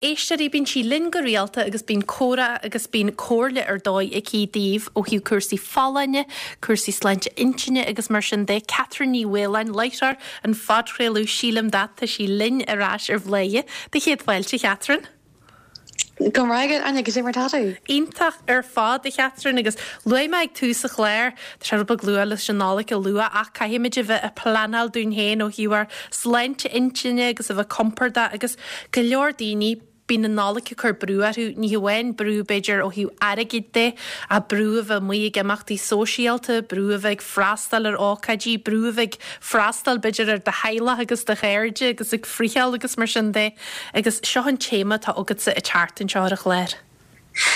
Éisteoirí, bíonn sí linn go rialta agus bíonn comhrá agus bíonn comhairle ar dóigh aici daoibh ó thaobh cúrsaí folláine, cúrsaí sláinte intinne agus mar sin de. Catherine Ní Mhaoláin, láithreoir an phodchraoladh Sílim That, tá sí linn ar ais ar Bhladhaire. Do chéad fáilte, a Chatherine. Go raibh maith agat, Áine, goidé mar tá tú? Iontach ar fad, a Chatherine, agus luaigh mé ag tús an chláir, tá sé rud beag luath leis an Nollaig a lua ach caithfimid a bheith ag pleanáil dúinn féin ó thaobh ár sláinte intinne agus a bheith compordach agus go leor daoine, bíonn an Nollaig ag cur brú orthu, ní hamháin brú b'fhéidir ó thaobh airgid de ach brú a bheith amuigh ag imeachtaí sóisialta, brú a bheith ag freastal ar ócáidí, brú a bheith ag freastal b'fhéidir ar do theaghlach agus do chairde agus ag friotháil agus mar sin de. Agus seo an téama atá agatsa an tseachtain seo ar an chlár.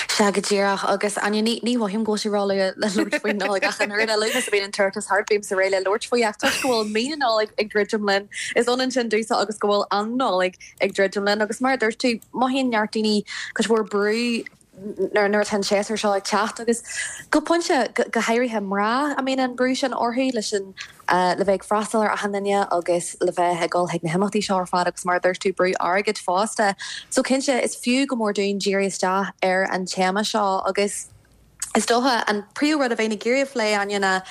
Sea, go díreach. Agus, Áine, ní, ní mhothaím go bhfuil sé róluath le labhairt faoin Nollaig ach an oiread. A luaithe is a bhíonn an toireachtas thart, bímse réidh le labhairt faoi. Ach toisc go bhfuil mí na Nollag ag druidim linn, is ionann sin domhsa agus go bhfuil an Nollaig ag druidim linn. Agus mar a dúirt tú, mothaíonn neart daoine cuid mhór brú nuair atá an séasúr seo ag teacht agus go pointe, go háirithe mná, a mbíonn an brú sin orthu leis an, le bheith ag freastal ar achan duine agus le bheith ag dul chuig na himeachtaí seo ar fad agus mar a dúirt tú, brú airgid fosta. So cinnte, is fiú go mór dúinn díriú isteach ar an téama seo agus is dócha an príomh rud a bheinn ag iarraidh a phlé, Áine, ná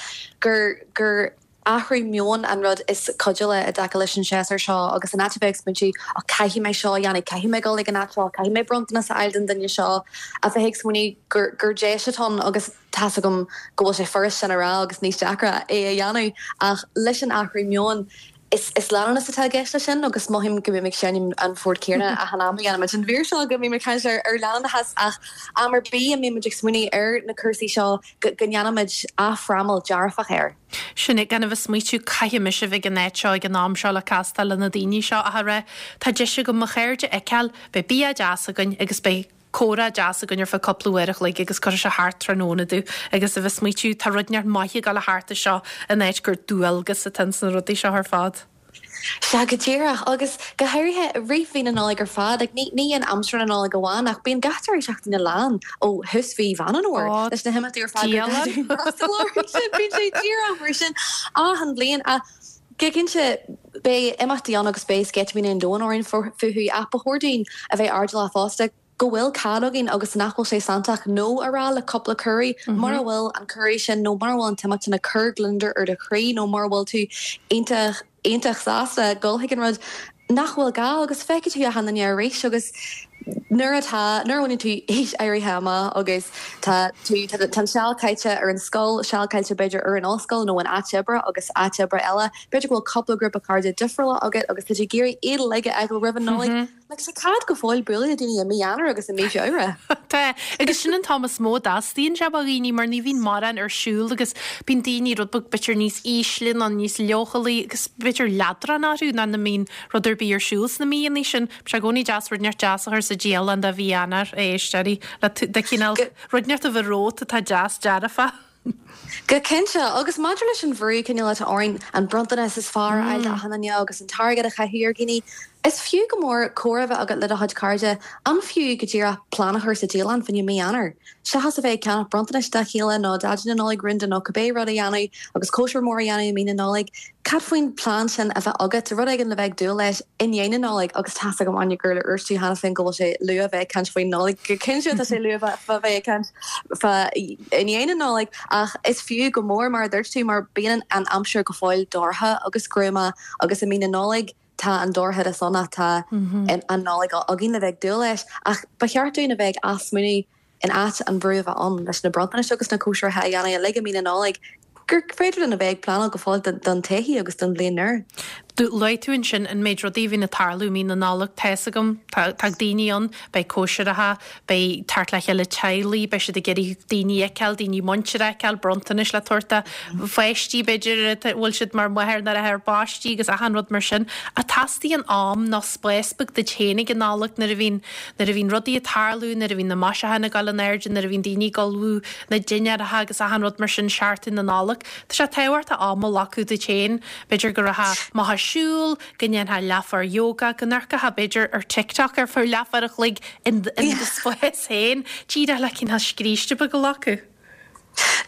gur, gur, athrú meoin an rud is cuidiúla i dtaca leis an séasúr seo agus in áit a bheith ag smaointiú 'och caithfidh mé seo a dhéanamh, caithfidh mé dul ag an áit seo, caithfidh mé bronntanas a fháil don duine seo', a bheith ag smaoineamh gur gur deis atá ann agus tá's agam go bhfuil sé furast sin a rá agus níos deacra é a dhéanamh ach leis an athrú meoin is is leanúnas atá i gceist leis sin agus mothaím go mbím ag seinm an phort céanna achan am a dhéanaimid an mhír seo go mbím ag caint ar ar leanúnachas ach am ar bith a mbímid ag smaoineamh ar na cúrsaí seo go go ndéanaimid athfhrámáil dearfach air. Sin é, gan a bheith ag smaoitiú, caithfidh mise a bheith ag an áit seo ag an am seo le castáil le na daoine seo ach a rá, tá deis agam mo chairde a fheiceáil, beidh bia deas againn agus beidh comhrá deas againn ar feadh cúpla uair a chloig agus cuirfidh sé thart tráthnóna domh agus a bheith ag smaoitiú, tá rud inteacht maith ag dul a theacht as seo in áit gur dualgas atá ins na rudaí seo ar fad. Sea, go díreach. Agus go háirithe i rith mhí na Nollag ar fad. Like, ní, ní in aimsir na Nollag amháin, ach bíonn gach deireadh seachtaine lán ó thús mhí Mheán an Fhómhair leis na himeachtaí ar fad gur gá dúinn freastal orthu sin. Bíonn sé díreach mar sin achan bhliain. Ach go cinnte, beidh imeachtaí ann agus beidh sceitimíní an domhain orainn fúthu, ach ba chóir dúinn a bheith airdeallach fosta. go bhfuil cead againn agus nach bhfuil sé santach 'no' a rá le cúpla cuireadh. Mura bhfuil an cuireadh sin nó mura bhfuil an t-imeacht sin ag cur gliondar ar do chroí nó mura bhfuil tú iontach, iontach sásta dul chuig an rud, nach bhfuil gá agus feicfidh tú achan duine arís agus nuair atá, nuair a bhaineann tú aois áirithe amach agus tá tú, tá an seal caite ar an scoil, seal caite b'fhéidir ar an ollscoil nó in áit oibre agus áit oibre eile, b'fhéidir go bhfuil cúpla grúpa cairde difriúla agat agus tá tú ag iarraidh iad uilig a fheiceáil roimh an Nollaig. Like, tá cead go fóill bualadh le daoine i mí Eanáir agus i mí Feabhra. Tá, agus sin an t-am is mó a dteastaíonn sé ó dhaoine mar ní bhíonn mórán ar siúl agus bíonn daoine rud beag b'fhéidir níos ísle nó níos leochailí agus b'fhéidir leadrán orthu nuair nach mbíonn rud ar bith ar siúl sna míonna sin. Tá sé i gcónaí deas rud inteacht deas a chur sa dialann do mhí Eanáir, a éisteoirí, le de chineál rud inteacht a bheith romhat atá deas dearfach. Go cinnte, agus maidir leis an bhrú cineál atá orainn an bronntanas is fearr a fháil d'achan duine agus an t-airgead a chaitheamh ar dhaoine, is fiú go mór comhrá a bheith agat le do chuid cairde. An fiú go díreach plean a chur sa dialann fá choinne mí Eanáir? Seachas a bheith ag ceannach bronntanais dá chéile nó Daidí na Nollag rúnda nó cibé rud a dhéanamh agus cóisir mhór a dhéanamh i mí na Nollag, Cad faoin plean sin a bheith agat, rud éigin le bheith ag dúil leis i ndiaidh na Nollag? Agus tá's agam, Áine, gur dhúirt tú cheana féin go bhfuil sé luath a bheith ag caint faoin Nollaig. Go cinnte tá sé luath a bheith ag caint fá i ndiaidh na Nollag, ach is fiú go mór, mar a dúirt tú, mar bíonn an aimsir go fóill dorcha agus gruama agus i mí na Nollag tá an dorchadas ann ach tá an Nollaig againn le bheith ag dúil leis. Ach ba cheart dúinn a bheith ag athsmaoineamh in áit an bhrú a bheith ann leis na bronntanais agus na cóisireacha a dhéanamh uilig i mí na Nollag, gur féidir linn a bheith ag pleanáil go fóill don todhchaí agus don bhliain nua. Luaigh tú ansin an méid rudaí a bhíonn ag tarlú i mí na Nollag. Tá's agam, tá daoine ann, beidh cóisireacha, beidh teacht le chéile teaghlaigh, beidh siad ag iarraidh daoine a fheiceáil, daoine muinteartha a fheiceáil, bronntanais le tabhairt do pháistí, b'fhéidir, a bhfuil siad mar mháthair nó athair ar bpáistí agus achan rud mar sin. Ach teastaíonn am nó spás beag duit féin ag an Nollaig nuair a bhíonn Nuair a bhíonn rudaí ag tarlú, nuair a bhíonn na maisiúcháin ag dul in airde, nuair a bhíonn daoine ag ullmhú na dinnéaracha agus achan rud mar sin seachtain na Nollag, tá sé tábhachtach am a ghlacadh duit féin. B'fhéidir go rachfá amach ag siúl, go ndéanfá leathuair yoga, go n-amharcfá b'fhéidir ar TikTok ar feadh leathuair a chloig in do spás féin, díreach le cineál scríste beag a ghlacadh.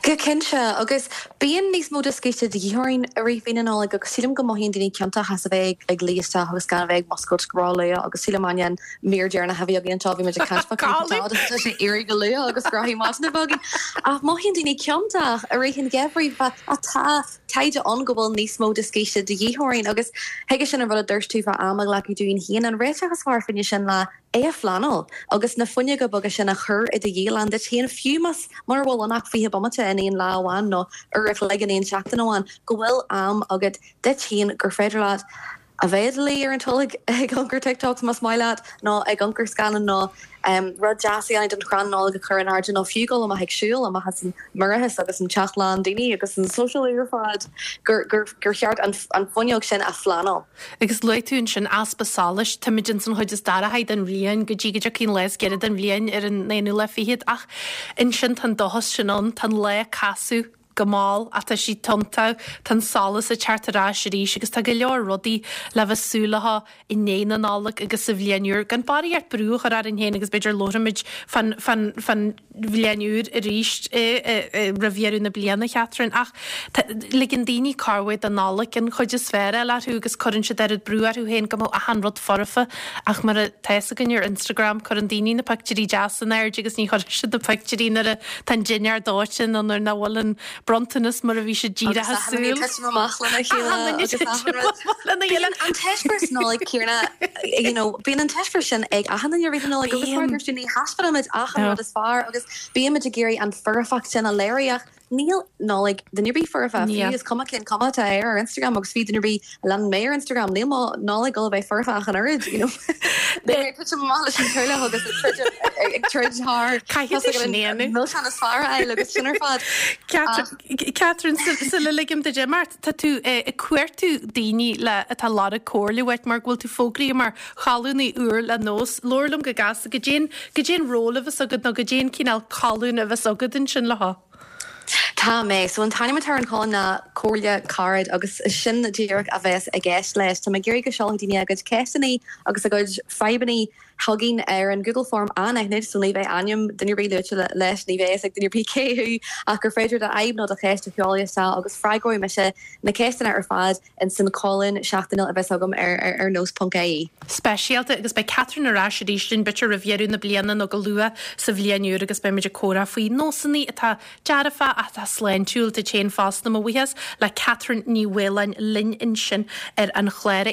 Go cinnte, agus bíonn níos mó de scíste de dhíth orainn i rith mhí na Nollag agus sílim go mothaíonn daoine ciontach as a bheith ag luí isteach agus gan a bheith ag muscailt ró-luath agus sílim Áine an mír deireanach a bhí againn anseo bhí muid ag caint fá cúrsaí agus tá sé ag éirí go luath agus grothaí maidine a bheith againn. Ach mothaíonn daoine ciontach i rith an gheimhridh ach tá taighde ann go bhfuil níos mó de scíste de dhíth orainn agus chuige sin an rud a dúirt tú fá am a ghlacadh dúinn féin, an réiteach is fearr fá choinne sin ná é a phleanáil agus na fuinneoga beaga sin a chur i do dhialann duit féin, fiú más mura bhfuil ann ach 20 bomaite in aon lá amháin nó uair a chloig in aon seachtain amháin, go bhfuil am agat duit féin gur féidir leat a bheith i do luí ar an tolg ag amharc ar TikToks más maith leat nó ag amharc ar scannán nó rud deas a dhéanamh don chrann Nollag a chur in airde nó fiú dul amach ag siúl amach as an mborrachas agus an teach lán daoine agus an sóisialú ar fad gur cheart an fuinneog sin a phleanáil. Agus luaigh tú ansin easpa solais, táimid ins an chuid is dorchaí den bhliain go dtí go dtiocfaidh an lá is giorra den bhliain ar an aonú lá fichead ach ansin tá an dóchas sin ann, tá an lá ag casadh go mall ach tá sí tiontach, tá an solas ag teacht ar ais arís agus tá go leor rudaí le bheith súil leo i ndiaidh na Nollag agus sa bhliain úr. Gan barraíocht brú a chur orainn féin agus b'fhéidir labhróimid fán, fán, fán bhliain úr arís roimh dheireadh na bliana, Catherine, ach ligeann daoine corruair don Nollaig an chuid is fearr a fháil orthu agus cuireann siad oiread brú orthu féin go mbeadh achan rud foirfe ach mar atá fhios againn ar Instagram cuireann daoine na pictiúirí deasa in airde agus ní chuireann siad na pictiúirí nuair atá an dinnéar dóite nó nuair nach bhfuil an bronntanas mar a bhí siad díreach ag súil. Agus achan duine ag titim amach lena chéile agus achan rud. Bíonn an t-eispéireas Nollag céanna, you know, bíonn an t-eispéireas sin ag achan duine i rith na Nollag agus mar a dúirt tú ní thaispeánaimid achan rud is fearr agus bímid ag iarraidh an foirfeacht sin a léiriú ach níl Nollaig duine ar bith foirfe, fiú is cuma cén cuma atá air ar Instagram agus fiú duine ar bith a leanann mé ar Instagram, níl mo Nollaig ag dul a bheith foirfe ach an oiread, you know. Beidh mé ag titim amach leis an teaghlach agus ag troid ag troid thar Caithfidh tú sin a dhéanamh. milseán is fearr a fháil agus sin ar fad. Catherine, sula ligim duit imeacht, tá tú ag cuartú daoine le atá ag lorg comhairle uait mar go bhfuil tú fógraithe mar cholúnaí úr le Nós. Labhair liom go gasta, goidé an, goidé an ról a bheas agat nó goidé an cineál colúin a bheas agat ansin leo. Tá mé. So an t-ainm atá ar an cholún ná Comhairle Carad agus sin díreach a bheas i gceist leis. Tá mé ag iarraidh go seolfaidh daoine a gcuid ceisteanna agus a gcuid fadhbanna chugainn ar an Google Form anaithnid so ní bheidh ainm duine ar bith luaite leis, ní bheidh fhios ag duine ar bith cé thú ach gur féidir do fhadhb nó do cheist a sheoladh isteach agus freagróidh mise na ceisteanna ar fad ins an cholún seachtainiúil a bheas agam ar ar nós ponc ie. Speisialta agus beidh Catherine ar ais arís linn b'fhéidir roimh dheireadh na bliana nó go luath sa bhliain úr agus beidh muid ag comhrá faoi nósanna atá dearfa ach atá sláintiúil duit féin fosta. Mo bhuíochas le Catherine Ní Mhaoláin linn ansin ar an chlár.